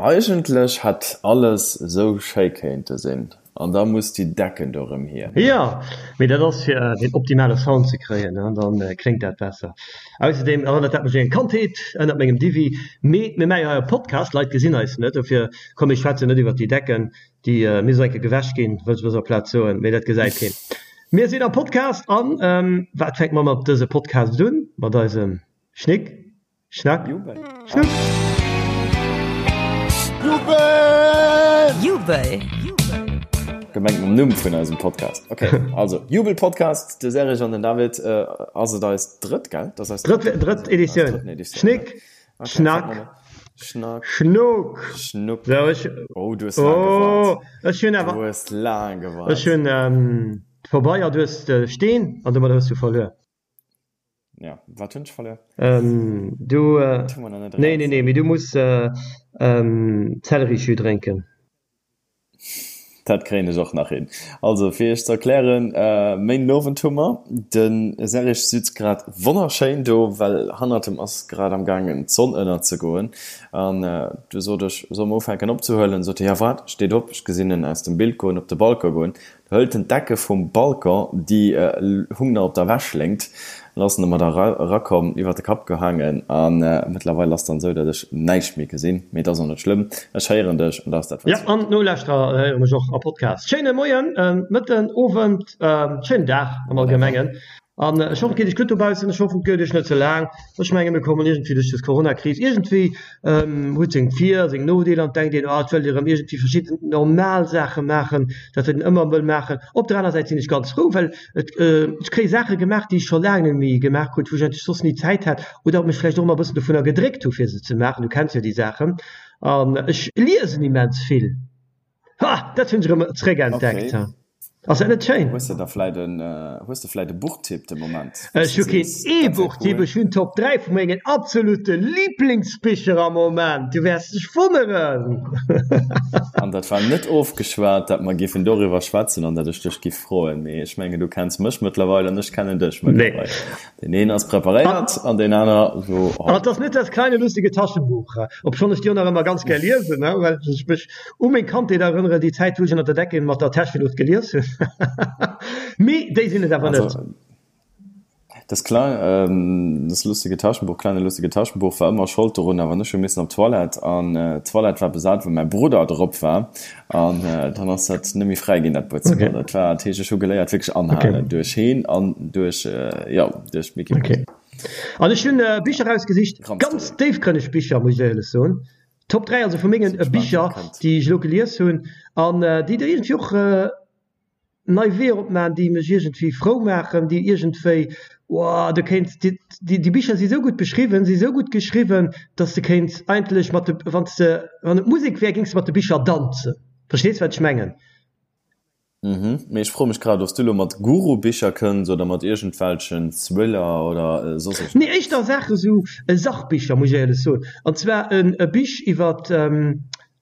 Eigentlech hätt alles esou schéi kéinte sinn, an da muss déi Decken do rëm hier. Jo, mee dat ass fir den optimale Sound ze kréien, dann kléngt dat besser. Ausserdeem erënnert dat mech un eng Kandheet ënnert mengem Divi. Mee mir maache jo hei e Podcast, Leit gesinn eis net, dofir komm mir schwätzen net iwwert déi Decken, déi misst och eng Kéier gewäsch ginn, wëll ech op dëser Plaz soen, mee dat gesäit keen. Mir sinn am Podcast an wat fänke mer mat dëse Podcast un? Mat eisem Schnick. Schnack, Jubel. Schnuck. Jubel! Jubel! Gemengt mam Numm vun eisem Podcast. Okay, also Jubel Podcast, de Serge an den David. Äh, ass et eis drëtt, gell? Dat ass eis drëtt, drëtt Editioun. Schnick, okay, Schnack, Schnack, Schnuck. Schnuck. So, ech, oh, du hues laang oh, gewaart. Ech hunn awer. Du hues laang gewaart. Ech hunn ähm, vorbei, du hues de Steen an domat hues du verluer. Ja, wat hunn ech verluer? Ähm, du, äh, nee, nee, nee, mee du muss äh, ähm, Zellerijus drénken. Dat kréien ech och nach hin. Also, fir iech ze erklären, äh, Méinden Owend hu mer. De Serge sitzt grad wonnerschéin do, well hannert em ass grad am gaangen d'Sonn ënnerzegoen. An äh, du sot ech, solle mer ufänken opzehuelen? Sot hie, ja wat, steet op, ech gesinn en aus dem Bild goen, op de Balcon goen. Hëlt en d'Decke vum Balcon, déi hung nach op der Wäschléngt, an ass domat erakomm, iwwer de Kapp gehaangen. A mëttlerweil ass dann esou, datt ech näischt méi gesinn. Mee et ass och net schlëmm, ech héieren dech an dat ass dat, wat zielt. Jo, an d'Nolauschterer héiere mech och am Podcast. Schéine Moien, Mëtten, Owend, schéinen Dag am Allgemengen. An ech hoffen, et geet iech gutt dobaussen. Ech hoffen, et gëtt iech net ze laang. Ech menge mir kommen iergendwéi duerch dës Coronakris. Iergendwéi huet seng Vir a seng Nodeeler an et denkt een, oh, et wëllt ee rëm iergendwéi verschidden normal Saache maachen, dat wat een ëmmer wëll maachen. Op der aner Säit sinn ech ganz frou, well et, ech kréie Saache gemaach, déi ech scho laang net méi gemaach krut, wou ech eigentlech soss ni Zäit hat oder mech vläicht och ëmmer e bëssen dovunner gedréckt hu fir se ze maachen. Du kenns jo déi Saachen. An ech liesen immens vill. Ha, dat hunn ech erëm zréckentdeckt. Okay. Ass dat net schéin? Hues de da vläit en, hues de vläit e Buchtipp de Moment, wou s Ech de hu keen sees, dat wär E-Buchtipp, cool? ech hunn d'Top 3 vu mengen absolute Liblingsbicher am Moment. Du wäers dech wonneren. An dat war net ofgeschwat, dat mer giffen doriwwer schwätzen an dat ech dech giff froen. Mee ech mengen, du kenns mech mëttlerweil an ech kennen dech Nee. mëttlerweil. Deen een ass preparéiert an deen aner so An et ass net das kleine lustige Taschenbuch, obschonn ech déi och nach ëmmer ganz gär liesen, well ech mech u meng Kandheet erënnere, déi Zäit wou ech ënner der Decke mat der Täscheluucht gelies hunn. Mee déi sinn et awer net. Also das kleine, das lustige Taschenbuch, kleine lustige Taschenbuch war ëmmer Schold dorun, awer ech hu missen op d'Toilette an d'Toilette war besat, well mäi Brudder drop war an dann ass dat net méi fräi ginn, dat Buedzëmmer. Okay. Dat war, dat heescht, ech hu geléiert wierklech anhalen Okay. duerch heen an duerch, jo, duerch Micky Mouse. Okay. An ech hunn Bicher erausgesicht, Grand ganz Story. déifgrënneg Bicher, muss ech éierlech soen. Top 3 also vu mengen Sinn gespaant, wat Bicher, kënnt. déi ech elo gelies hunn an déi der iergendwéi och nei Weeër opmaachen, déi mech iergendwéi frou maachen, déi iergendwéi, wow, du kéints, déi, déi Bicher si sou gutt beschriwwen, si sou gutt geschriwwen, dass de kéints eigentlech mat de, wann s de, wann et Musek wär, géings de mat de Bicher danzen. Verstees, wat ech mengen? Mhm, mee ech froe mech grad, ob s du elo mat Guru-Bicher kënns oder mat iergendwelchen Thriller oder soss Nee, iergendeppes. éischter Saache sou Sachbicher, muss ech éierlech soen. An zwar e Bich iwwert,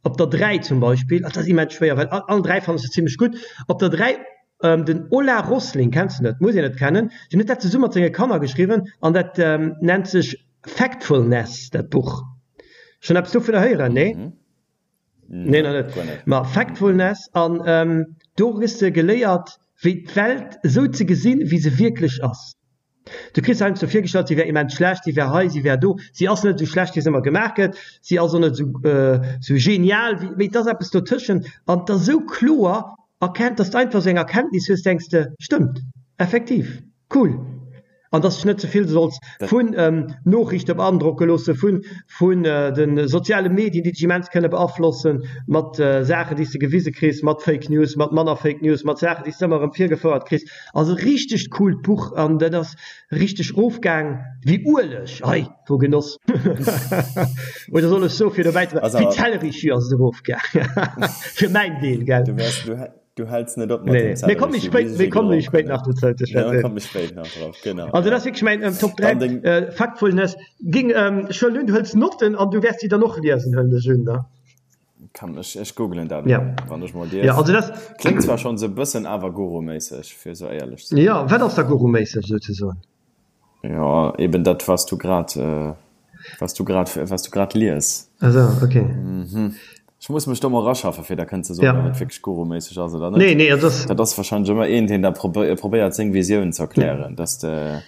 Op der 3 zum Beispill, dat ass immens schwéier, well all 3 fannen ech se zimlech gutt. Op der 3 den Ola Rosling, kenns de net, muss een net kennen, deen huet dat zesumme mat senge Kanner geschriwwen an dat nennt sech Factfulness, dat Buch. Schonn eppes dovunner héieren? Nee? Nee, nach net. Ma Factfulness, an do kriss de geléiert, wéi d'Welt esou ze gesinn, wéi se wierklech ass. Du kriss heiansdo virgestallt, si wär immens schlecht, si wär hei, si wär do. Si ass net esou schlecht, wéi se ëmmer gemaach gëtt. Si ass och net esou genial, wéi, mee et ass eppes dotëschent. An et ass esou kloer erkennt, dass de einfach esou eng Erkenntnis hues, denks de, stëmmt, effektiv, cool. An dass de dech net ze vill solls vun Noriichte beandrocke loosse, vun, vun de soziale Medien, déi dech immens kënne beaflossen, mat Saachen, déi s de gewise kriss, mat Fake News, mat manner Fake News, mat Saachen, déi s de ëmmer erëm virgefouert kriss. Ass e richtegt coolt Buch an dat ass richteg rofgaang wéi Ueleg, ei wou Genoss! Oder soll ech soe fir dobäi ze bleiwen, wéi Zellerijus ass et erofgaang, fir mäin Deel, gell? Du wäers, du, du häls net op mat Nee, dem mir komme méi Zellerijus, spéit, bis ech mir e komme méi gedronk spéit hunn. nach dozou ze Ja, mir schwätzen. komme méi spéit nach drop, genau, Also dat ja. ass wierklech mäin Top 3 Dann deng. Factfulness. Ging, ech huelen un, du hëls Notten an du wäers déi dann och liesen, huelen ech un, ne? Kann ech, ech googelen dat Ja. elo, wann ech mol Ja, dierf. also dat. Kléngt zwar schonn sou bëssen awer Guru-méisseg, fir sou éierlech ze sinn. Ja, wat ass da Guru-méisseg souzesoen? Jo, eben dat, wat s du grad. Was du grad, was du grad lies. Also, okay. Mhm. Ech muss mech do mol eraschaffen, fir da kënnen ze soen, ja. ob et wierklech guruméisseg ass oder net. Nee, nee, also das, Dat ass wahrscheinlech ëmmer een, deen da probéiert, seng Visioun ze erklären, dass de,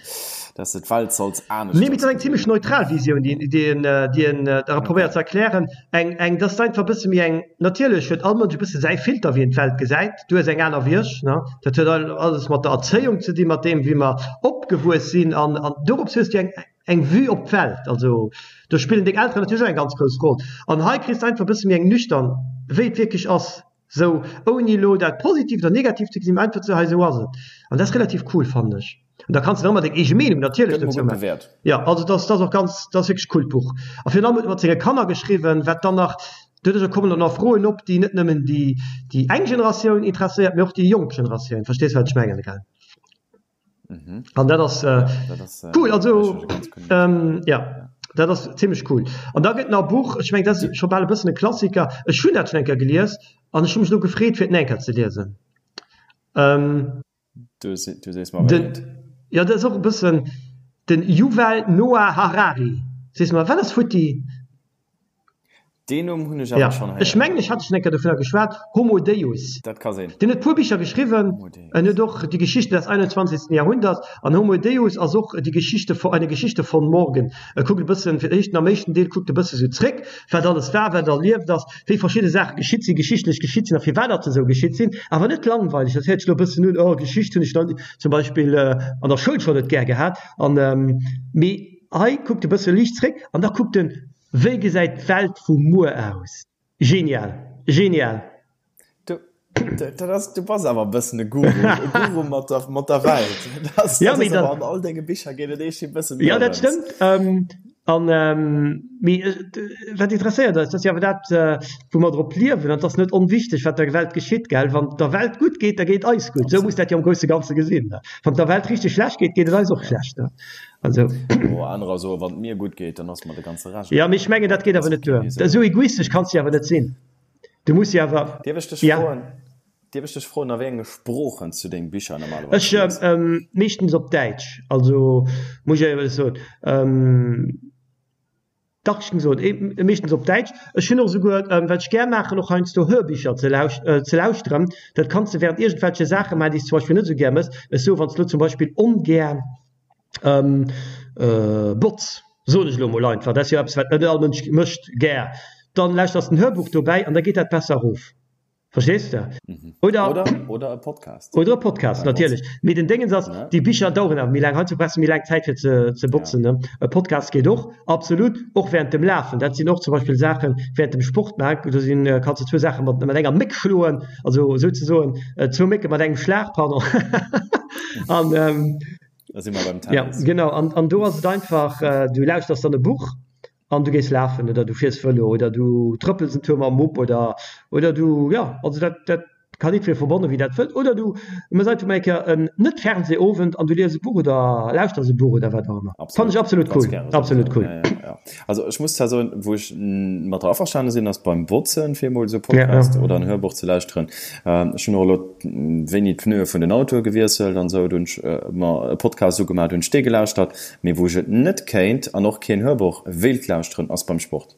dass de d'Welt solls aneschters Nee, mee et ass eng gesinn. zimmlech neutral Visioun, déi, déi en, déi en da probéiert ze erklären. Eng, eng, dat ass einfach e bësse méi eng, natierlech huet all Mënsch e bësse säi Filter, wéi en d'Welt gesäit. Du hues eng aner wéi ech, ne? Dat huet alles mat der Erzéiung ze dinn, mat deem, wéi mer opgewuess sinn an, an dorops hues du eng, eng Vue op d'Welt, also do spillen deng Elteren natierlech och eng ganz grouss Roll. An hei kriss de einfach e bësse méi eng nüchtern, wéi et wierklech ass, sou ouni elo dat positiv oder negativ ze gesinn, mä einfach ze, hei esou ass et. An dat ass relativ cool, fannen ech. An da kanns de nach ëmmer deng eege Meenung natierlech Gëtt emol dozou gutt maachen. bewäert. Jo, also dat ass, dat ass och ganz, dat ass wierklech e coolt Buch. A virun allem huet e mat senge Kanner geschriwwen, wat dann nach, doduercher kommen dann och Froen op, déi net nëmmen déi, déi eng Generatioun interesséiert, mä och déi jonk Generatioun. Verstees, wat ech mengen, gell? Mhm. An dat ass äh, Dat ass, äh, cool, also ganz cool. ähm, ja, dat ass zimmlech cool. An da gëtt nach e Buch, ech meng dat ass scho bal e bëssen e Klassiker, ech hunn dat schonn eng Kéier gelies an ech hu mech elo gefreet fir et nach eng Kéier ze liesen. Ähm, Du, du sees mer wéi den, et. ja dat ass och e bëssen den Yuval Noah Harari. Sees mer, wat ass futti? Deen Numm hunn ech awer Ja, schonn ech héieren. mengen, ech hat schonn eng Kéier dovunner geschwat, Homo Deus. Dat ka sinn. Deen huet e puer Bicher geschriwwen. Homo Deus. En huet och Die Geschichte des 21. Jahrhunderts an Homo Deus ass och Die Geschichte, eine Geschichte von morgen. E kuckt e bëssen, fir d'éischt, am éischten Deel kuckt e bësse sou zréck, wat alles war, wat erlieft ass, wéi verschidde Saache geschitt sinn, geschichtlech geschitt sinn a firwat datt se esou geschitt sinn. Awer net langweileg, dat héiert sech elo e bëssen un, oh Geschicht hunn ech dann zum Beispill an der Schoul schonn net gär gehat. An, mee hei kuckt e bësse liicht zréck an da kuckt en, Wéi gesäit d'Welt vu muer aus? Genial! Genial! Du, dat ass, du bass awer e bëssen e Guru, e Guru mat der, mat der Welt. Dat ass, Ja, dat mee ass awer dann, an all denge Bicher geet et eescht e bëssen ja, dat dorëms. stëmmt. An, mee wat interesséiert eis? Dat ass jo awer dat, wou mer drop liewen. An et ass net onwichteg, wat der Welt geschitt, gell? Wann et der Welt gutt geet, da geet et eis gutt. Esou muss dat jo am grousse Ganze gesinn. Wann et der Welt richteg schlecht geet, geet et eis och Ja. schlecht. Also. Oh, anerer soen, wann et mir gutt geet, dann ass mer de ganze Rescht Ja, mee ech egal. mengen, dat geet Dat awer ass net duer. okay, esou. Esou egoistesch kanns de jo awer net sinn. Du muss jo awer, Dierf ech dech ja. froen, dierf ech dech froen, a wéi enge Sproochen s du deng Bicher normalerweis Ech, lies? meeschtens op Däitsch, also muss ech éierlech soen. Dach, ech géing soen, meeschtens op Däitsch. Ech hunn och esouguer, wat ech gär maachen, och heiansdo Hörbücher ze ze lauschteren. Dat kanns de während iergendwelche Saache maachen, déi s de zum Beispill net esou gär mëss. Ech soe wann s de elo zum Beispill ongär botz, soen ech elo emol einfach, dat ass jo eppes, wat net all Mënsch mécht gär, dann lauschters de en Hörbuch dobäi an da geet dat besser erof. Verstees de? Oder, oder, oder e Podcast. Oder e Podcast, natierlech. Mee den Déngens ass, déi Bicher daueren awer méi laang. Heiansdo brauchs de méi laang Zäit fir ze, ze botzen, ne? E Podcast geet och, absolut, och während dem Lafen. Dat sinn och zum Beispill Saachen, während dem Sport maachen, do sinn, kanns de zwou Saache mat, mat enger Méck schloen, also souzesoen, zwou Mécke mat engem Schlag, pardon. An, Da si mer beim ja, Tennis. genau. An, an do ass et einfach, du lauschters dann e Buch an du gees lafen oder du fiers Vëlo oder du trëppels en Tour mam Mupp oder oder du, jo, also dat dat kann jiddweree verbannen, wéi dat wëllt. Oder du méchs einfach mol eng Kéier en Net-Fernseh-Owend an du lies e Buch oder lauschters e Buch oder wat och ëmmer. Fannen ech absolut Ganz cool, gäre souwisou. absolut cool. Ja, ja, ja. Also ech muss zwar soen, wou ech mat der averstane sinn, ass beim Botzen, fir emol esou e Ja, ja. Podcast oder en Hörbuch ze lauschteren. Ech hunn och elo wéini d'Pneue vun den Autoe gewiesselt an esou, do hunn ech mer e Podcast ugemaach, do hunn ech dee gelauschtert. Mee wou ech et net kéint an och keen Hörbuch wéilt lauschteren ass beim Sport.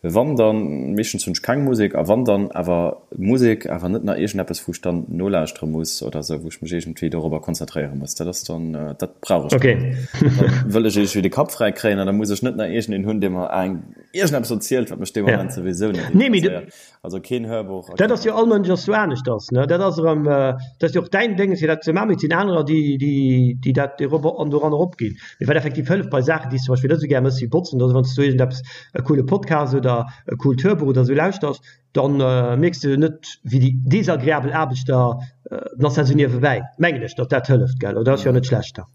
Wann dann, meeschtens hunn ech keng Musek, a wann dann awer Musek, awer net nach iergendeppes wou ech dann nolauschtere muss oder sou, wou ech mech iergendwéi dorobber konzentréiere muss. Dat ass dann, dat brauch ech dann net. Dann wëll ech iergendwéi de Kapp fräi kréien an da muss ech net nach iergendeen hunn, dee mer eng iergendeppes erzielt, wat mech dee Moment souwisou net interesséiert. Also keen Hörbuch a Dat keen ass jo, all Mënsch ass jo aneschters, ne? Dat ass erëm, dat ass jo och däin Déngens, fir dat ze maachen, mee et sinn anerer, déi, déi, déi dat erop an doran eropginn. Mee wat effektiv hëlleft bei Saachen, déi s de zum Beispill net esou gär méchs wéi botzen oder esou, wann s du iergendeppes, e coole Podcast oder e coolt Hörbuch oder esou lauschters, dann mierks de net, wéi déi desagreabel Aarbecht da, dann ass dat esou niewebäi, mengen ech, datt dat hëlleft, gell? Oder ass jo net schlecht da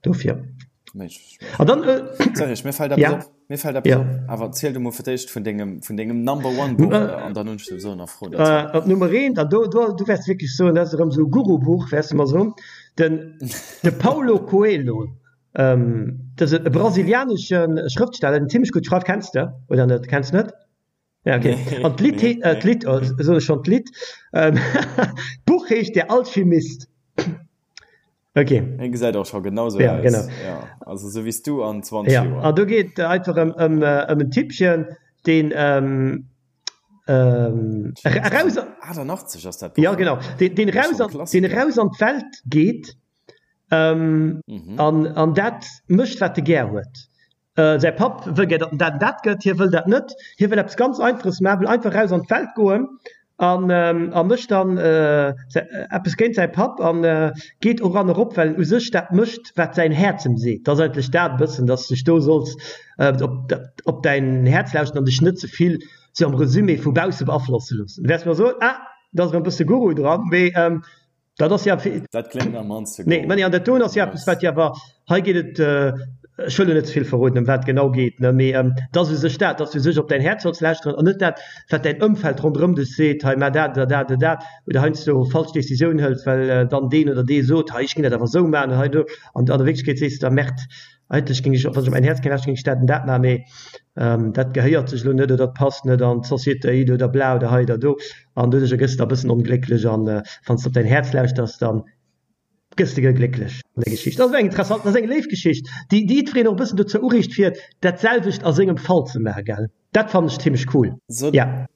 dofir. An dann, Serge, mir fällt eppes op. Mir fällt eppes op. Awer ziel du mol fir d'éischt vun dengem, vun dengem Number One Buch an dann hunn ech souwisou nach Froen dozou. Op Nummer eent, an do, do, du wäerts wierklech soen, dat ass erëm esou e Guru-Buch, wäerts de mer soen, den, de Paulo Coelho, dat ass e brasilianesche Schrëftsteller, deen zimmlech gutt schreift. Kenns de oder net? Kenns net? Ja, okay. An d'Lidd, d'Lidd, soen ech schonn, d'Lidd, d'Buch heescht Der Alchemist. Ok. Hien gesäit och scho genau sou Ja, aus. genau. Ja, also sou wéi s du an 20 Ja, Joer. an do geet et einfach ëm, ëm, ëm en Typpchen, deen ähm, ähm, eraus. 88 ass dat Buch, Ja, genau. Deen, deen eraus an, deen eraus an d'Welt geet ähm, mhm. an, an dat mécht, wat e gär huet. Säi Papp wëll gär, datt en dat an dat gëtt, hie wëll dat net. Hie wëll eppes ganz Einfaches maachen, wëll einfach eraus an d'Welt goen an a mécht dann eppes géint säi Papp an geet och an erop, well en u sech dat mécht, wat säin Häerz em seet. Dat ass eigentlech dat e bëssen, datt s de dech do solls op op däin Häerz lauschten an dech net ze vill sou am Resumé vu bausse beaflosse loossen. Du wäers mer soen, ah, do ass erëm e bësse Guru dran, mee Dat ass jo. Dat kléngt am mannste Nee, mä an dat doen ass jo eppes, wat jo awer, hei geet et, ech wëll elo net ze vill verroden, ëm wat et genau geet, ne, mee et ass u sech dat, dass du u sech op däin Häerz solls lauschteren an net dat, wat däin Ëmfeld ronderëm dech seet, hei mar dat oder dat oder dat, oder heiansdo falsch Décisioun hëls, well dann deen oder dee sot, hei ech géing dat awer esou maachen an hei do, an an der Wierklechkeet sees de da, Merde, Eigentlech géing ech, wann ech op mäin Häerz géing lauschteren, géing ech dat an dat maachen, mee dat gehéiert sech elo net oder dat passt net an d'Sociétéit oder bla oder hei oder do. An doduercher gëss de da e bëssen onglécklech an wann s de op däin Häerz lauschters, da gëss de glécklech an der Geschicht. Dat ass eng interessant, dat ass eng léif Geschicht, déi déi jiddwereen och e bëssen dozou ureegt fir dat selwecht a sengem Fall ze maachen, gell? Dat fannen ech zimmlech cool, ja.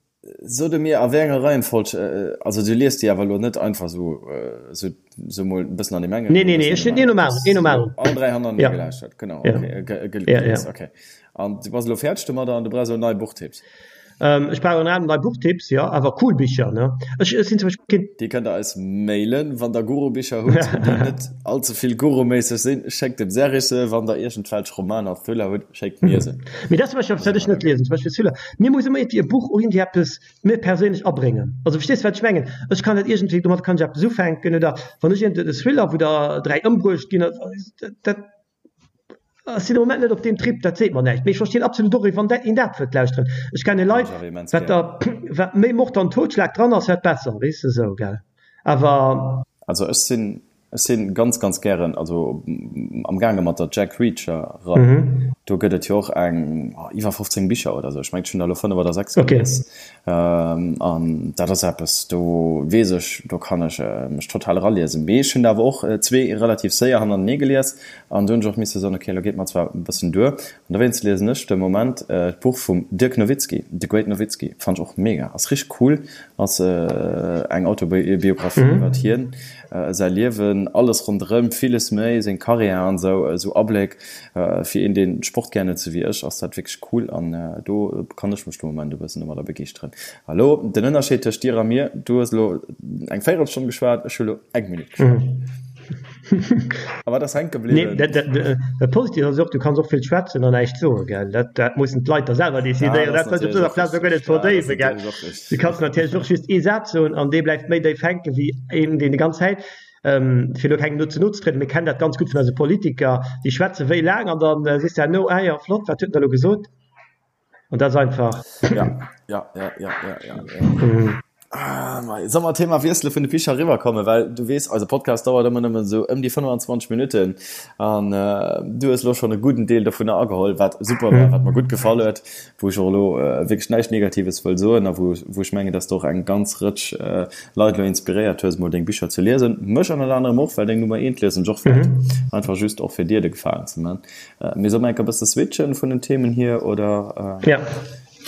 So de mir a wéi enger Reihenfolg, also du liest déi awer elo net einfach sou, sou, sou mol e bëssen an deem engen, Nee, nee, nee, ech hunn een nom aneren, een nom aneren. All 3 hannertenee ja. gelauschtert, genau, ja. okay, ge, ge, ja, ja. okay. An du bass elo fäerdeg domadder an du brauchs elo nei Buchtipps. Ähm, ech brauch ënner anerem nei Buchtipps, jo, awer cool Bicher, ne? Ech, ech sinn zum Beispill keen. Déi kënnt der eis mailen, wann der Guru-Bicher hutt, déi net all ze vill Guru-méisseg sinn, schéckt dem Serge se, wann der iergendwelch Romaner, Thriller hutt, schéckt mir se. Mee dat zum Beispill eppes, wat ech net liesen, zum Beispill Thriller. Mir muss ëmmer iergendwéi e Buch och iergendwéi eppes mir perséinlech abréngen. Also verstees de wat ech mengen? Ech kann net iergendwéi, domat kann ech eppes ufänken oder wann ech iergend e Thriller, wou der 3 ëmbruecht ginn, dat ech sinn am Moment net op deem Trip, dat seet mer näischt. Mee ech verstinn absolut och, wann dat een dat wëllt lauschteren. Ech kenne Leit, wat der wat méi Mord an Totschlag dran ass, wat besser, weess de sou, gell? Awer. Also ech sinn Ech sinn ganz ganz gären also am gaange mat der Jack Reacher Rei. Do gëtt et jo och eng iwwer 15 Bicher oder sou. Ech mengen ech hunn der elo 5 oder 6 gelies. An dat ass eppes do weess ech, do kann ech mech total eraliesen. Mee ech hunn der awer och zwee relativ séier hannertenee gelies an do hunn ech och misse soen, ok elo geet mer zwar e bëssen duer. An dowéinst liesen ech de Moment d'Buch vum Dirk Nowitzki, The Great Nowitzki. Fannt ech och mega, ass richteg cool, ass eng Autobiographie iwwert hien. Säi Liewen, alles ronderëm, villes méi, seng Karriär an esou, esou Abléck. Fir een, deen Sport gär huet, sou wéi ech, ass dat wierklech cool an do kann ech mech de Moment e bëssen domadder begeeschteren. Hallo, den Ënnerscheed tëscht dir a mir, du hues elo eng Véierelstonn geschwat, ech hu elo eng Minutt geschwat. A wat ass hänke bliwwen? Nee, dat Positiivt ass och, du kanns och vill schwätzen an näischt soen, gell? Dat, dat mussen d'Leit da selwer decidéieren. Dat wëll ech op dëser Plaz och guer net verdéiwen, gell? Du kanns natierlech och just ee Saz soen an dee bleift méi déif hänken, wéi een, deen déi ganz Zäit, fir elo kengem do ze no ze trieden, mir kennen dat ganz gutt vun eise Politiker, déi schwätze wéi laang an da sees de herno, ah jo, flott, wat huet en da elo gesot? An dat ass einfach. Ja, ja, ja, ja, ja, ja. ja. Ah, Soll mer Thema wiessele vun de Bicher eriwwerkommen, well du weess, eise Podcast dauert ëmmer nëmmen esou ëm déi 25 Minutten an äh, du hues lo schonn e gudden Deel dovunner ageholl, wat super war, wat mer gutt gefall huet, wou ech och elo äh, wierklech näischt Negatives wëll soen a wou, wou ech mengen, dass du och eng ganz Rëtsch äh, Leit elo inspiréiert hues, mol deng Bicher ze liesen. Mech ënnert anerem och, well deng Nummer eent liesen ech och wäert. Einfach just och fir dir de Gefalen ze man. Mee soll mer enker bësse switchen vun den Themen hier oder ja.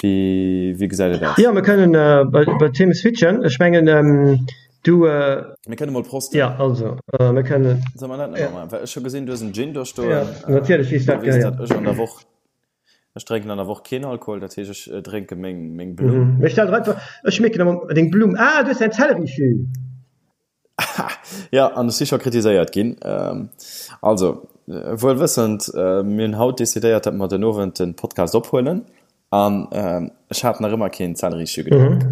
wéi, wéi gesäit et aus? Jo, mir kënnen äh, bei, bei Themen switchen. Ech mengen ähm, du. Äh, mir kënne mol prosten. Ja, also äh, mir kënnen. Soll mer dat net ja. maachen? Well ech hu gesinn, du hues en Gin do stoen. Ja, natierlech, wéi dat gehéiert. Dat ech an der Woch. Ech drénken an der Woch keen Alkohol, dat heescht ech drénke meng, meng Blumm. Mhm. Ech stell der einfach, ech schmecken ëmmer deng Blumm. Ah, du hues eng Zellerijus. Jo, an ech si scho kritiséiert ginn. Also, wuel wëssend, mir hunn haut decidéiert, datt mer den Owend de Podcast ophuelen an ech hat nach ëmmer keen Zellerijus gedronk.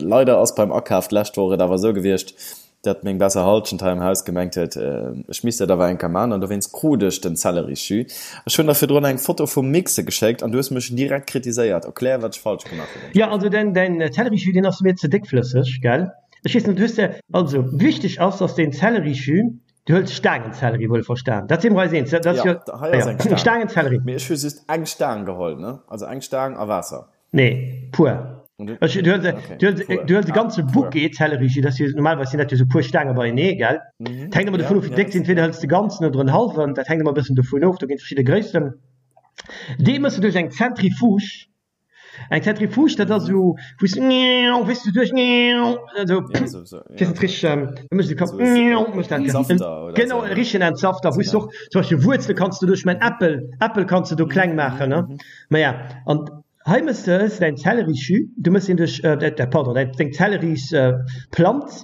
Leider ass beim Akaf d'lescht Woch et awer esou gewiescht, datt meng besser Hallschent hei am Haus gemengt huet, ech misst dat awer eng Kéier man an dowéinst krut ech den Zellerijus. Ech hunn der virdrun eng Foto vum Mixe geschéckt an du hues mech direkt kritiséiert. Erklär, wat ech falsch gemaach hunn. Jo, also däin Zellerijus, deen ass mir ze déckflësseg, gell? Ech weess net, hues de, also wichteg ass, dass deen Zellerijus, du hëls Staangenzellerie, wuel verstan, dat si mer eis eens, dat ass jo, Ja, hei ass eng Staang. Staangenzellerie. Mee ech hu just eng Staang geholl, ne? Also eng Staang a Waasser. Nee, puer. Ech, du huels, du huels, du huels e ganze Bouquet Zellerijus, dat ass jo, normalerweis sinn dat jo sou puer Staange beienee, gell? Dat hänkt ëmmer dovun of, wéi déck sinn. Entweder hëls de ganzen oder en hallwen, dat hänkt ëmmer e bëssen dovun of, do ginn et verschidde Gréissten. Dee méchs de duerch eng Zentrifuge. Eng Zentrifuge, dat ass esou, wou s de, wéis de, duerch, esou, weess net richteg, da méchs de Kapp, méchs dat, genau, e richtegen Entsafter, wou s de och zum Beispill Wuerzele kanns de doduerch man, Äppel, Äppel kanns de do kleng maachen, ne? Maja, an Hei mëss de hues de däin Zellerisjus, du mëss deen duerch, pardon, däin deng Zellerisplanz,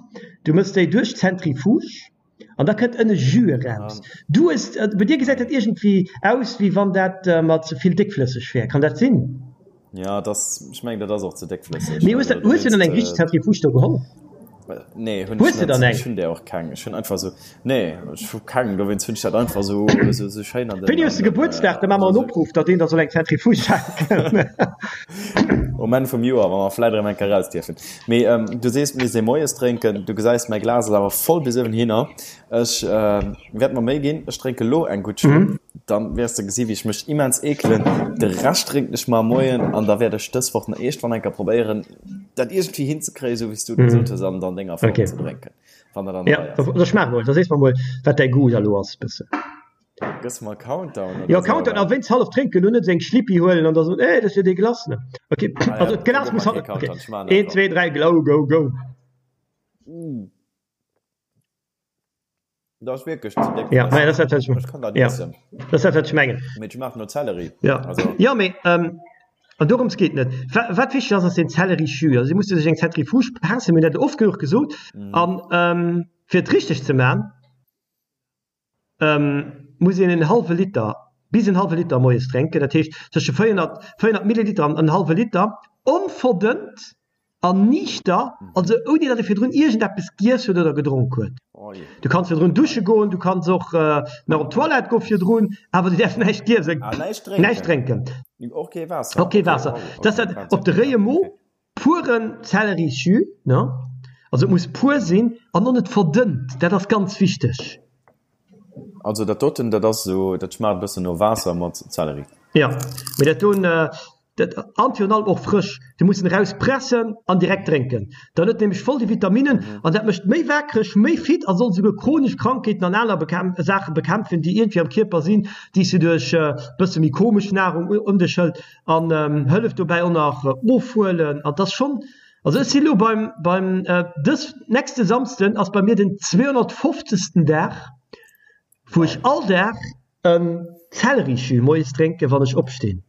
du mëss déi duerch d'Zentrifuge an da kënnt ënne Jus eraus. Du hues, bei dir gesäit dat iergendwéi aus wéi wann dat mat ze vill déckflësseg wär, kann dat sinn? Jo, et ass, ech mengen dat ass och ze déckflësseg. Mee hues de hues de dann eng richteg Zentrifuge do geholl? Nee, hunn ech net. Ech hunn där och keng. Ech hunn einfach esou, nee, ech hu keng, dowéinst hunn ech dat einfach esou, esou, esou schéin an den. Wéini hues de Gebuertsdag? Da maache mer en Opruff, datt een der soll eng Zentrifuge schenken. Um Enn vum Joer, wa mer vläit erëm eng Kéier raus dierfen. Mee du sees, mir si moies drénken. Du gesäis, mäi Glas ass awer voll bis uewenhinner. Ech wäert mer Méi ginn. Ech drénke lo eng gutt Schlupp. Dann wäers de gesi wéi ech mech immens eekelen. De Rescht drénken ech mar moien an da wäert ech dës Woch nach iergendwann eng Kéier probéieren, dat iergendwéi hinzekréien, esou wéi s du et gesot hues, an an denger Form ze drénken, wann dat an der Rei ass. Ja, da schmaach mol, da sees mer mol, wat däi Goût da lo ass, bëssen. Gëss mer Countdown oder Jo, Countdown, a wéinst hallef drénken, lo net esou eng Schlippi huelen an da soen, eh, dat ass jo déi Glace, ne? Ok, also d'Glas muss hallef, ok, een, zwee, dräi, glou, go, go. Dat ass wierklech ze déck. Ja, dat ass dat, wat ech, kann dat ja. Dat ass dat, wat ech mengen. Mee et schmaacht no Zelleri. Ja, also. ja mee ähm, an dorëms geet net. Wat wichteg ass, ass den Zellerijus. Also, si musse sech eng Zentrifuge persen, mir hunn dat oft genuch gesot. Mm. An ähm, fir et richteg ze man, ähm, muss een en hallwe Liter bis en hallwe Liter moies drénken. Dat heescht tësche 400, 400 Milliliter an en hallwe Liter onverdënnt An niichter, also ouni datt e virdrun iergendeppes giess huet oder gedronk huet. Du kanns virdrun dusche goen, du kanns och nach op d'Toilette goe virdrun, awer du däerfs näischt iessen, näischt drénken. Och kee Waasser? Och kee Waasser. Dat ass dat op de réie Mo, puren Zellerisjus, ne? Also et muss pur sinn an och net verdënnt, dat ass ganz wichteg. Also dat doten, dat ass esou, dat schmaacht e bëssen no Waasser mat Zelleri. Jo, mee dat doen, Dat an virun allem och frësch. Du muss en eraus pressen an direkt drénken. Dann huet en nämlech voll déi Vitaminnen an dat mécht méi waakreg, méi fit a soll esouguer chronesch Krankheeten an aner Saache bekämpfen, déi iergendwéi am Kierper sinn, déi s du duerch bësse méi komesch Nahrung ëm dech hëlt an hëlleft dobäi och nach ofhuelen. An 't ass schonn, also ech si lo beim, beim dës nächste Samsden ass bei mir den 250. Dag, wou ech all Dag en Zellerijus moies drénken, wann ech opstinn.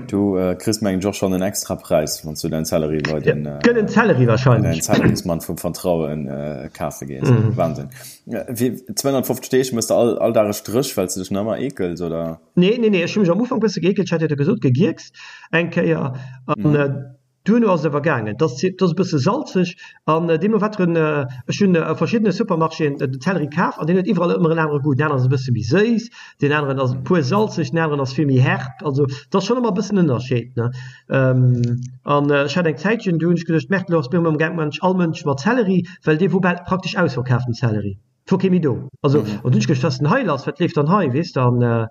Du kriss mengen ech och schonn en extra Präis, wann s du däin Zelleri bei den Gëllen Zelleri wahrscheinlech. Däin Zellerismann vum Vertrauen kafe gees. Wahnsinn. Wéi 250 Deeg mëss de all all Dag e Stréch, well s de dech nach ëmmer eekels, oder? Nee, nee, nee, ech hu mech am Ufank bësse geekelt, ech hat jo da gesot, gegierkst eng Kéier an Duerno ass et awer gaangen. Et ass e bësse salzeg an deemno wat en, ech hunn a verschiddene Supermarchéen den Zelleri kaf an deen huet iwwerall ëmmer en anere Goût. Deen aneren ass e bësse méi séiss, deen aneren ass puer salzeg, deen aneren ass vill méi herb. Also et ass schonn ëmmer e bëssen Ënnerscheed, ne. An ech hat eng Zäitchen, do hunn ech geduecht, Merde, elo ass mir ëmmer gaangen, all Mënsch mat Zelleri, well dee wor bal praktesch ausverkaf, den Zelleri. Et wor kee méi do. Also, an dunn hunn ech geduecht, wat ass denn hei lass, wat leeft dann hei, weess de? An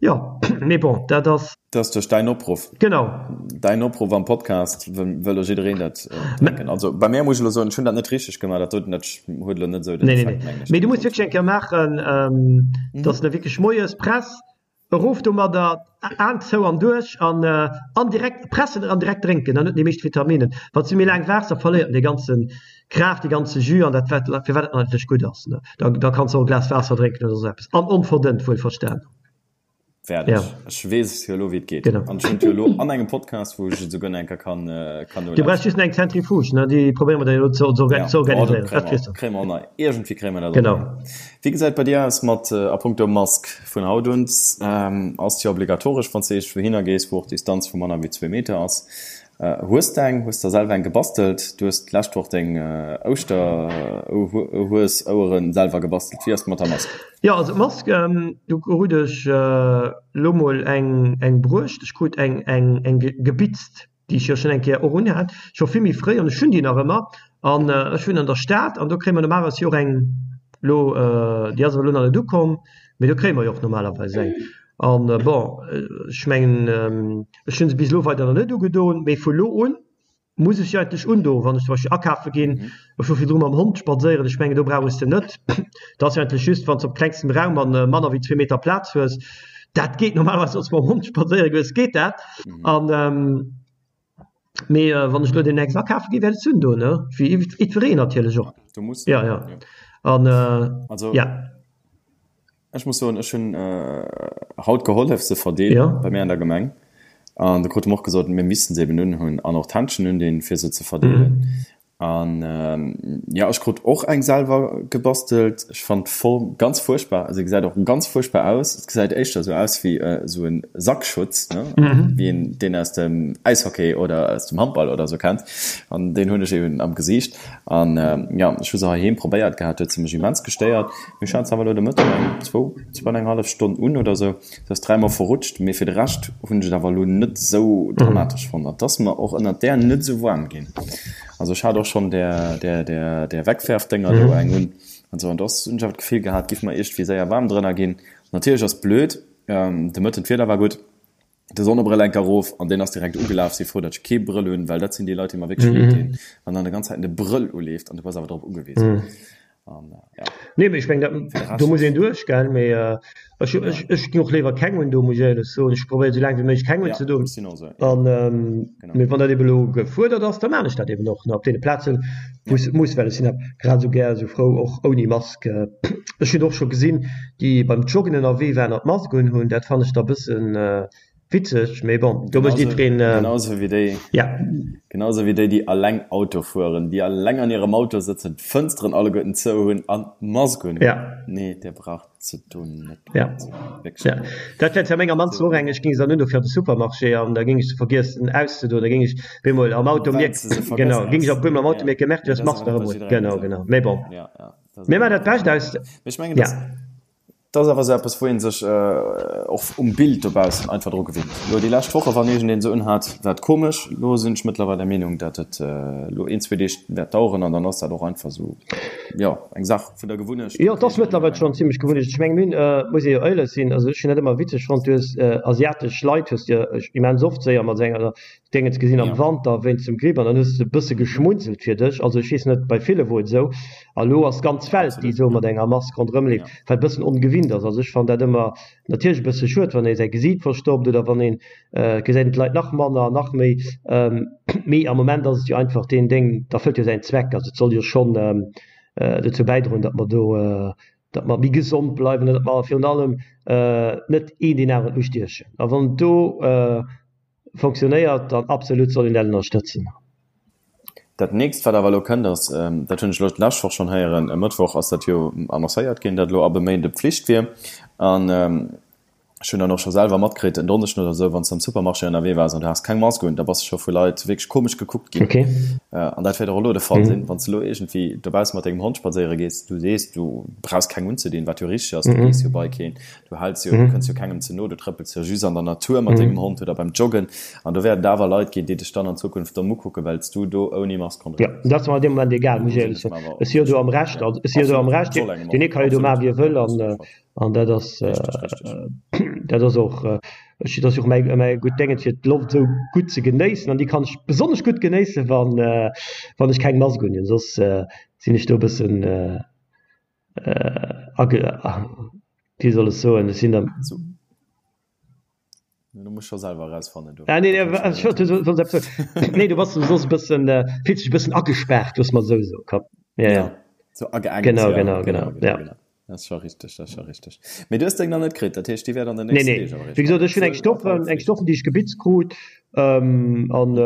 jo, mee bon, dat ass. Dat ass duerch däin Opruff. Genau. Däin Opruff am Podcast, wëll elo jiddereen dat drénken. Also bei mär muss ech elo soen, ech hunn dat net richteg gemaach, dat doten, dat huet elo net esou den Effekt, mengen ech. Nee, nee, mee du muss wierklech eng Kéier maachen, dass de wierklech moies press, Erof domadder, Aen zou an duerch an an direkt pressen an direkt drénken, dann huet en déi meescht Vitaminen. Wann s du méi laang waarts, da verléiert en dee ganze Kraaft, dee ganze Jus an dat wat firwat et eigentlech gutt ass. Da da kanns de och e Glas Waasser drénken oder sou eppes an onverdënnt wuelverstan. Wäert ech. Ech weess jo elo wéi et geet. Genau. An ech hunn et jo elo an engem Podcast, wou ech et esouguer nach eng Kéier kann kann nolauschteren. Du brauchs just nach eng Zentrifuge, ne? Déi probéiere mer da jo elo ze organiséieren. Dat kriss de. Kréie mer och nach. Iergendwéi kréie mer dat och nach hin. Wéi gesäit bei dir aus mat a punkto Mask? Vun haut un ass et jo obligatoresch, wann s de iergendwou hinner gees, wou och d'Distanz vu manner wéi zwee Meter ass. Hues de eng? Hues der selwer eng gebastelt? Du hues d'lescht Woch deng Ouschterhues-Oueren selwer gebastelt. Wéi ass et mat der Mask? Jo, also d'Mask, do krut ech elo mol eng bruecht. Ech krut eng gebitzt. déi ech jo schonn eng Kéier och unhat, scho vill méi fréi, an ech hunn déi nach ëmmer, an ech wunnen an der Stad an do kréie mer normalerweis jo och eng, elo, déi ass awer elo nach net ukomm, mee do kréie mer jo och normalerweis eng. An bon, ech mengen, ech hu se bis elo weider nach net ugedoen, mee vu lo un muss ech se eigentlech undoen, wann ech zum Beispill akafe ginn. Ech wor virdru mam Hond spadséieren, ech mengen do brauch ech se net. Dat ass jo eigentlech just, wann s de op klengstem Raum an manner wéi zwee Meter Plaz hues. Dat geet normalerweis, wann s de mam Hond spadséiere goes, geet dat. An mee wann ech elo deemnächst akafe ginn, wäert ech se undoen, ne, wéi jiddwereen natierlech och. Jo, jo. An ja. Ech muss soen, ech hunn haut gehollef se verdeelen bei mir an der Gemeng an do krute mer och gesot, mir missten se eben unhunn an och d'Händschen undinn, fir se ze verdeelen. An jo, ech krut och eng selwer gebastelt. Ech fannen d'Form ganz fuerchtbar, se gesäit och ganz fuerchtbar aus. Et gesäit éischter esou aus wéi esou e Sackschutz, ne, wéi een deen aus dem Äishockey oder aus dem Handball oder esou kennt. An deen hunn ech eben am Gesiicht. An jo, ech hu se heiheem probéiert gehat, huet se mech immens gestéiert. Mee ech hat se awer elo de Mëtteg eng zwou, zwou an eng hallef Stonn un oder sou. Se ass dräimol verrutscht, mee fir de Rescht hunn ech et awer elo net esou dramatesch fonnt. An et ass mer och ënnert där net esou waarm ginn. Also ech hat och schonn där, där, där, där Wegwerfdénger do eng un an sou, an do ass, hunn ech awer d'Gefill gehat, giff mer iergendwéi séier waarm drënner ginn. Natierlech ass blöd, de Mëtten d'Wieder war gutt. de Sonnebrëll enk erof an deen ass direkt ugelaf. Si frou, datt ech kee Brëll hunn, well dat sinn déi Leit, déi mer wierklech leed dinn, wann dann de ganz Zäiten de Brëll uleeft an du bass awer drop ugewisen. An ja. Nee, mee ech meng, dat, do muss een duerch, gell? Mee ech, ech, ech ginn och léiwer keng un do, muss ech éierlech soen. Ech probéieren esou laang wéi méiglech keng unzedoen. Ja, ech sinn och esou, ja. An, mee wann dat ebe lo gefuerdert ass, da maan ech dat eben och, ne, op deene Plazen, wou s et muss, well ech sinn grad esou gär esou frou och ouni Mask. Ech hunn och scho gesinn, déi beim Joggen ënnerwee waren an d'Mask un hunn, dat fannen ech da bëssen witzeg, mee bon, do mécht jiddwereen. Genau esou wéi déi, genau esou wéi déi, déi alleng Auto fueren, déi alleng an hirem Auto sëtzen, d'Fënsteren alleguerten zou hunn an d'Mask un hunn. Nee, Dir braucht se do net unzedoen, wierklech net. Dat wär zwar meng am mannsten och eng, ech géing se dann un do fir an de Supermarché an da géing ech se vergiessen auszedoen, da géing ech bemol am Auto mierken, genau, géing ech op eemol am Auto mierken, Merde, du hues d'Mask nach ëmmer un. Genau, genau, mee bon. Mir maachen dat Bescht aus. Mee ech mengen, dass, dat ass awer esou eppes, wou ee sech och um Bild dobaussen einfach dru gewinnt. Elo déi lescht Woche, wann iergendeen se unhat, war et komesch. Elo sinn ech mëttlerweil der Meenung, datt et elo een, zwee Deeg wäert daueren an dann ass dat och einfach esou, jo, eng Saach vun der Gewunnecht. Jo, et ass mëttlerweil schonn zimlech Gewunnecht. Ech mengen, mir hunn, muss ee jo éierlech sinn, also ech hunn dat ëmmer witzeg fonnt, du hues asiatesch Leit hues de immens oft séier mat enger Déngens gesinn am Wanter wéinst dem Gripp an dann hues de e bësse geschmunzelt fir dech. Also ech weess net, bei ville wor et esou. A lo ass d'ganz Welt déi esou mat enger Mask ronderëm leeft, wat e bëssen ongewinnt ass. Also ech fannen dat ëmmer natierlech e bësse schued, wann ee säi Gesiit verstoppt oder wann een, et gesäit een d'Leit nach manner an nach méi. Mee am Moment ass et jo einfach deen Déng, dat erfëllt jo säin Zweck. Also et soll jo schonn dozou bäidroen, datt mer do, datt mer méi gesond bleiwen an datt mer virun allem net een deen aneren ustiechen. A wann do Fonctionnéiert, dann absolut soll een dat ënnerstëtzen. Dat nächst wat awer elo kënnt ass, dat hunn ech elo d'lescht Woch schonn héieren, e Mëttwoch ass dat jo annoncéiert ginn, datt elo ab e Méinde Pflicht wier. An ech hunn dann och scho selwer matkritt, en Donneschden oder esou, wann s de am Supermarché ënnerwee waars an du has keng Mask un, da bass de scho vu Leit wierklech komesch gekuckt ginn. An dat wäert och elo de Fall sinn, wann s de elo iergendwéi dobausse mat dengem Hond spadséiere gees, du sees, du brauchs keng unzedinn, wat jo richteg ass, du gees jo bei keen, Du häls jo, du kënns jo kengem ze no, du trëppels jo just an der Natur mat dengem Hond oder beim Joggen. An do wäerten et awer Leit ginn, déi dech dann an Zukunft domm ukucken, well s du do ouni Mask ronderëm Jo, dat ass mer an deem Moment egal, muss ech éierlech soen. Ech si jo do am Recht, also ech si jo do am Recht, deen ee ka jo do maachen, wéi e wëll an an dat ass, dat ass och, ech, dat ass jo och mäi mäi gutt Déngen, fir d'Loft esou gutt ze genéissen an déi kann ech besonnesch gutt genéissen, wann wann ech keng Mask unhunn, soss sinn ech do e bëssen Wéi soll ech soen, ech sinn der. Du muss scho selwer erausfannen do. Ah nee, nee, ech wollt soss eppes soen. Nee, du bass soss e bëssen, fills dech e bëssen agespaart, looss mer esou soen, komm. Ja, ja. Sou ageengt, Genau, genau, genau, ja. Dat ass scho richteg, dat ass scho richteg. Mee du hues deng nach net kritt, dat heescht, déi wäert an den nächsten Deeg awer eréischt kommen. Nee, nee, wéi gesot, ech hunn eng Stoffen, eng Stoffen, déi ech gebitzt krut, an.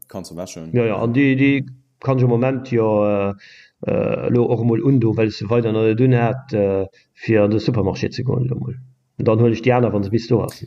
Kanns du wäschen. Jo, jo, an déi, déi Kann ech am Moment jo elo och emol undoen, well ech se weider nach net unhat, fir an de Supermarché ze goen elo mol. An dann huelen ech déi aner, wa se bis do ass.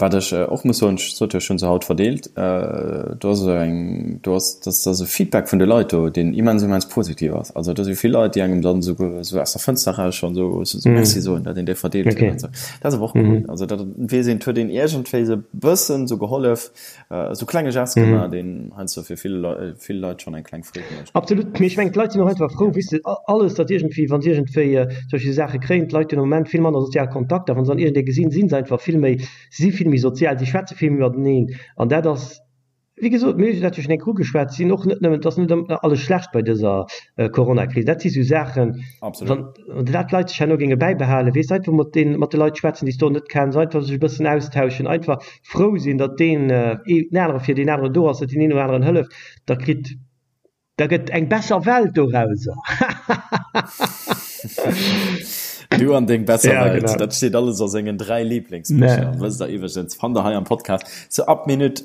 Wat ech och muss soen, ech sot jo, ech hu se haut verdeelt, do ass esou eng, do ass, dat ass e Feedback vun de Leit do, deen immens, immens positiv ass. Also do si vill Leit, déi engem dann esou esou aus der Fënster eraus schonn esou esou Merci soen, datt een déi verdeelt huet an esou. Dat ass awer och cool. Also dat weess een, et huet een iergendwéi esou e bëssen esou gehollef, esou klenge Gest gemaach, deen heiansdo fir vill vill Leit schonn eng kleng Freed mécht. Absolut, mee ech mengen d'Leit sinn och einfach frou, weess de, alles datt iergendwéi, wa se iergendwéi zum Beispill Saache kréien, d'Leit hunn am Moment vill manner sozial Kontakter, wa se dann iergendee gesinn, si se einfach vill méi, si si vill méi sozial, si schwätze vill méi mateneen an dat ass, wéi gesot, mir hunn dat jo schonn eng Kéier ugeschwat, sinn och net nëmmen, et ass net ëmmer alles schlecht bei dëser Coronakris, dat si sou Saachen, wann dat d'Leit sech herno géinge bäibehalen, weess, einfach mat den, mat de Leit schwätzen, déi s de och net kenns, einfach sech e bëssen austauschen, einfach frou sinn, datt deen een anere fir deen aneren do ass, datt deen een dem aneren hëlleft, da kritt, da gëtt eng besser Welt dorauser. Du an deng besser ja, Welt, genau. Dat steet alles a sengen 3 Lieblingsbicher. Nee. Wësst der iwwergens, fannt der hei am Podcast. So ab Minute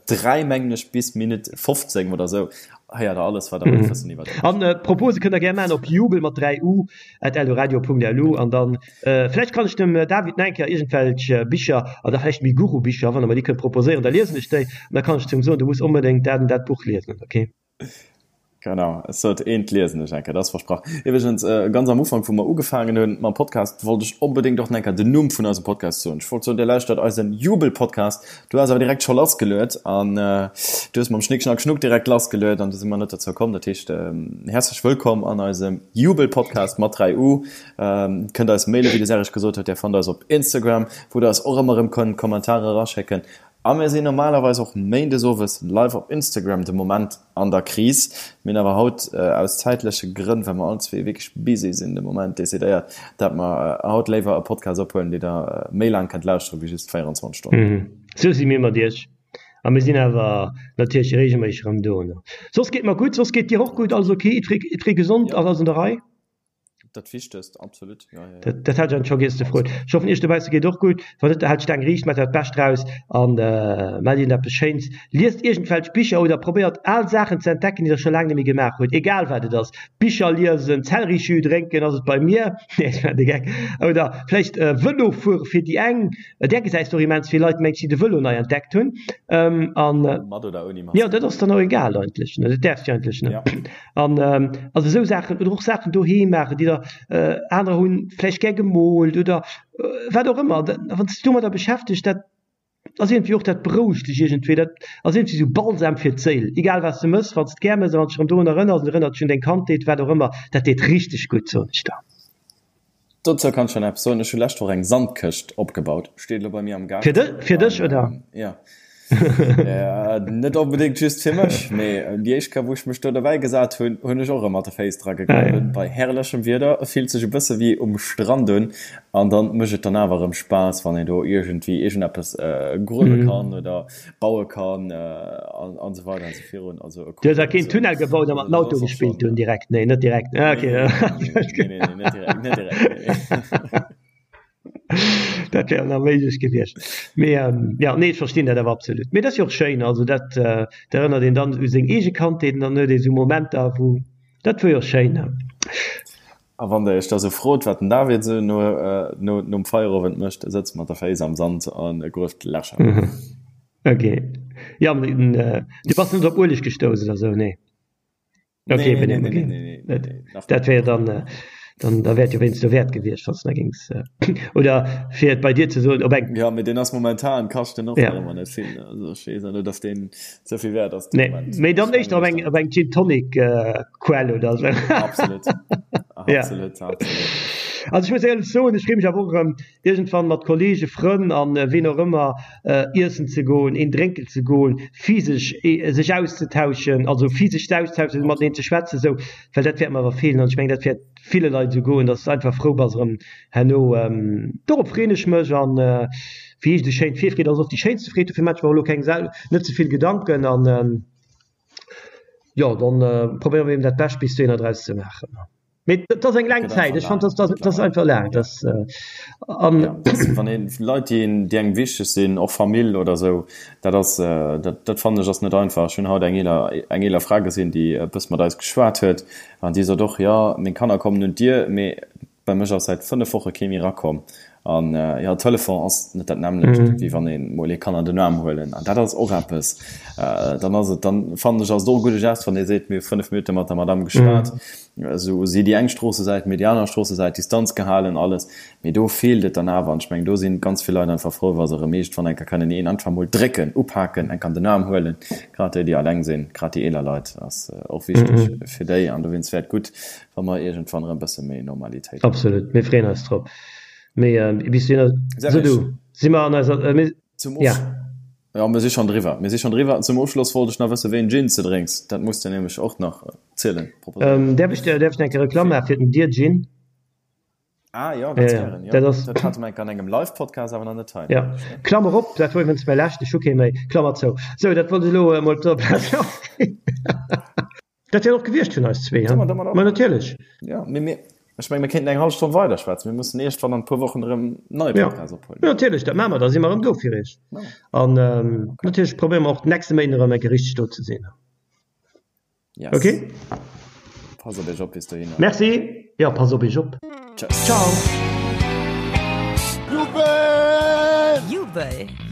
äh, 3 mengen ech bis Minute 15 oder sou héiert der alles, wat der wollt wëssen iwwer. An äh, Propose kënnt der gär man op jubel mat 3 u at eldoradio.lu an dann äh, vläicht kann ech dem äh, David nach eng Kéier iergendwelch äh, Bicher oder vläicht méi Guru-Bicher, wann der mer déi kënnt proposéieren, da liesen ech déi an da kann ech zum soen, du muss onbedéngt dat an dat Buch liesen, okay? Genau, ech sot eent liesen ech eng Kéier, dat ass versprach. Iwwregens, ganz am Ufank, wou mer ugefaangen hunn mam Podcast, wollt ech onbedéngt och nach eng Kéier den Numm vun eisem Podcast soen. Ech wollt soen, Dir lauschtert eisen Jubel-Podcast. Du has awer direkt scho lassgeluet an du hues mam Schnick, Schnack, Schnuck direkt lassgeluet an du si mer net dozou komm. Dat heescht, häerzlech wëllkomm an eisem Jubel-Podcast mat 3 U. Kënnt eis mailen, wéi de Serge gesot huet. Dir fannt eis op Instagram, wou der eis och ëmmer erëm kënnt Kommentarer eraschécken. A mir sinn normalerweis och méindes owes live op Instagram, de Moment an der Kris. Mir hunn awer haut aus zäitleche Grënn, well mer all zwee wierklech busy sinn de Moment, decidéiert, dat mer haut léiwer e Podcast ophuelen, dee der méi laang kënnt lauschteren, wéi just 24 Stonnen. Sou si mir mat iech. A mir sinn awer natierlech reegelméisseg erëm do. Soss geet mer gutt. Soss geet dir och gutt? Alles ok? Jiddweree gesond? Alles an der Rei? Dat Wichtegst, absolut. Ja, ja, ja. Dat, dat hat ech scho giess ze froen. Ech hoffen iech dobausse geet och gutt. Wann net, haalt d'Staang riicht, maacht dat Bescht draus an äh, maacht iergendeppes Schéins. Liest iergendwelch Bicher oder probéiert al Saachen ze entdecken, déi der scho laang net méi gemaach hutt. Egal wat et ass. Bicher liesen, Zellerijus drénken ass et bei mir. Nee, ech maachen de Geck. Oder vläicht äh, Vëlo fuere fir déi eng. Där gesäis de och immens vill Leit, mengs, déi de Vëlo nei entdeckt hunn. Ähm, an äh, Mat oder ouni Mask. Jo, dat ass dann och egal eigentlech, ne? Dat däerfs de eigentlech, ne? Ja. An also esou Saachen oder och Saachen doheem maachen, déi der anerer hunn vläicht gär gemoolt oder wat och ëmmer. Wann s de dech domadder beschäftegt, dat ass iergendwéi och, dat berouegt dech iergendwéi, dat ass iergendwéi esou Balsam fir d'Séil. Egal wat s de mëss, wann s de et gär mëss a wann s de dech erëm dorun erënners an erënnert dech un deng Kandheet, wat och ëmmer, dat deet richteg gutt, soen ech der. Dozou kann ech schonn eppes soen, Ech hu lescht Woch eng Sandkëscht opgebaut, steet elo bei mir am Gaart. Fir dech, oder? Jo. Net onbedéngt just fir mech, mee déi éischt Kéier, wou ech mech do derbäi gesat hunn, hunn ech och erëm mat de Féiss dra gegruewen. Bei herrlechem Wieder, et fillt sech e bësse wéi um Strand un an dann mécht et dann awer erëm Spaass, wann een do iergendwéi iergendeppes gruewe kann oder baue kann an esou weider an esou virun. Also e Du hues awer keen Tunnel gebaut a mat den Auto gespillt dunn direkt? Nee, net direkt. Ah, okay. Nee, nee, nee, net direkt, net direkt, nee, nee. Dat wär nach méiglech gewiescht. Mee jo, nee, ech verstinn dat awer absolut. Mee dat ass jo och schéin, also dat, dat erënnert een dann u seng eege Kandheet an dann huet ee sou Momenter, wou, dat wor jo schéin. A wann der iech da sou frot, wat den David sou no, no, nom Feierowend mécht, e sëtzt mat der Féiss am Sand an e grueft Lächer. Ok, jo, du bass net op Ueleg gestouss oder sou, nee? Okay, nee, nee, nee, nee, nee, nee, nee, nee. Dat wär dann, äh, dann da wäert jo wéinst dowäert gewiescht, wann s de géings äh, oder fir et bei dir ze soen, op eng. Ja, mee deen ass momentan kascht den och ja. ëmmer net vill. Also ech weess net, dass deen ze vill wäert ass. Nee, mee dann éischter op eng op eng Gin Tonic äh, Quell oder sou. Absolut. Absolut, ja. absolut. Also ech muss éierlech soen, ech freeë mech awer och erëm iergendwann mat Kollege, Frënn an ween och ëmmer iessen ze goen, een drénken ze goen, physesch sech auszetauschen, also physesch ze austauschen, mateneen ze schwätzen esou, well dat wäert mer awer feelen an ech mengen dat wäert ville Leit esou goen, dass de einfach frou bass erëm herno. Dorop freeën ech mech an wéi heescht esou schéin, d'Virfreed ass oft déi schéinste Freed, dofir maache ech mer och elo keng net ze vill Gedanken an jo dann probéiere mer eben dat Bescht bis dohinner draus ze maachen. Mee dat ass eng laang Zäit. Ech fand, dat ass einfach laang. Dat, an ja, wann een Leit, déi een, déi engem wichteg sinn, och Famill oder esou, dat ass, dat, dat fannen ech ass net einfach. Ech hunn haut eng eeler, eng eeler Fra gesinn, déi e bësse mat eis geschwat huet an déi sot och, jo, meng Kanner kommen un d'Dier, mee bei mech ass säit 5 Woche kee méi erakomm. An jo, Telefon ass net dat nämmlecht, wéi wann ee mol ee kann an den Aarm huelen. An dat ass och eppes, dann ass et, dann fannen ech, ass et och e gudde Gest, wann ee seet, mir hu 5 Minutte mat der Madamm geschwat, esou si déi eng Stroossesäit, mir déi aner Stroossesäit, Distanz gehalen, alles. Mee do feelt et dann awer. An ech mengen, do si ganz vill Leit einfach frou, wa se erëm iergendwann eng Kéier kënnen een einfach mol drécken, upaken, enk an den Aarm huelen. Grad déi, déi alleng sinn, grad déi eeler Leit, ass och wichteg fir déi. An dowéinst wär et gutt, wa mer iergendwann erëm e bësse méi Normalitéit hunn. Absolut, mir freeën eis drop. Mee bis dohinner, sou du, si mer an eiser, mir, Zum ja. Jo, mir si schonn driwwer. Mir si schonn driwwer. Zum Ofschloss wollt ech nach wëssen, wéi en Gin s de drénks. Dat muss de nämlech och nach zielen, proposéieren. Däerf ech, däerf ech eng Kéier Reklamm maache fir den Dear Gin? Ah jo, ganz gären, jo. Dat ass. Dat hate mer enk an engem Live-Podcast, awer nach net hei. Jo. Klammer op, dat wor iwwregens mäi leschten, ech hu kee méi, Klammer zou. Sou, dat wollt ech elo emol op der Plaz lassginn. Dat wär och gewiescht vun eis zwee, he? Ma natierlech. Jo, mee mir, ech menge mir kéinten eng hallef Stonn weiderschwätzen. Mir mussen iergendwann an e puer Wochen erëm en neie Podcast ophuelen. Jo, natierlech, dat maache mer. Da si mer erëm do fir iech. An natierlech probéiere mer och d'nächste Méinden erëm eng Kéier richteg do ze sinn. Yes. Ok? Passt op iech op bis dohinner. Merci. Jo, passt op iech op. Tschëss. Ciao. Jubel! Jubel!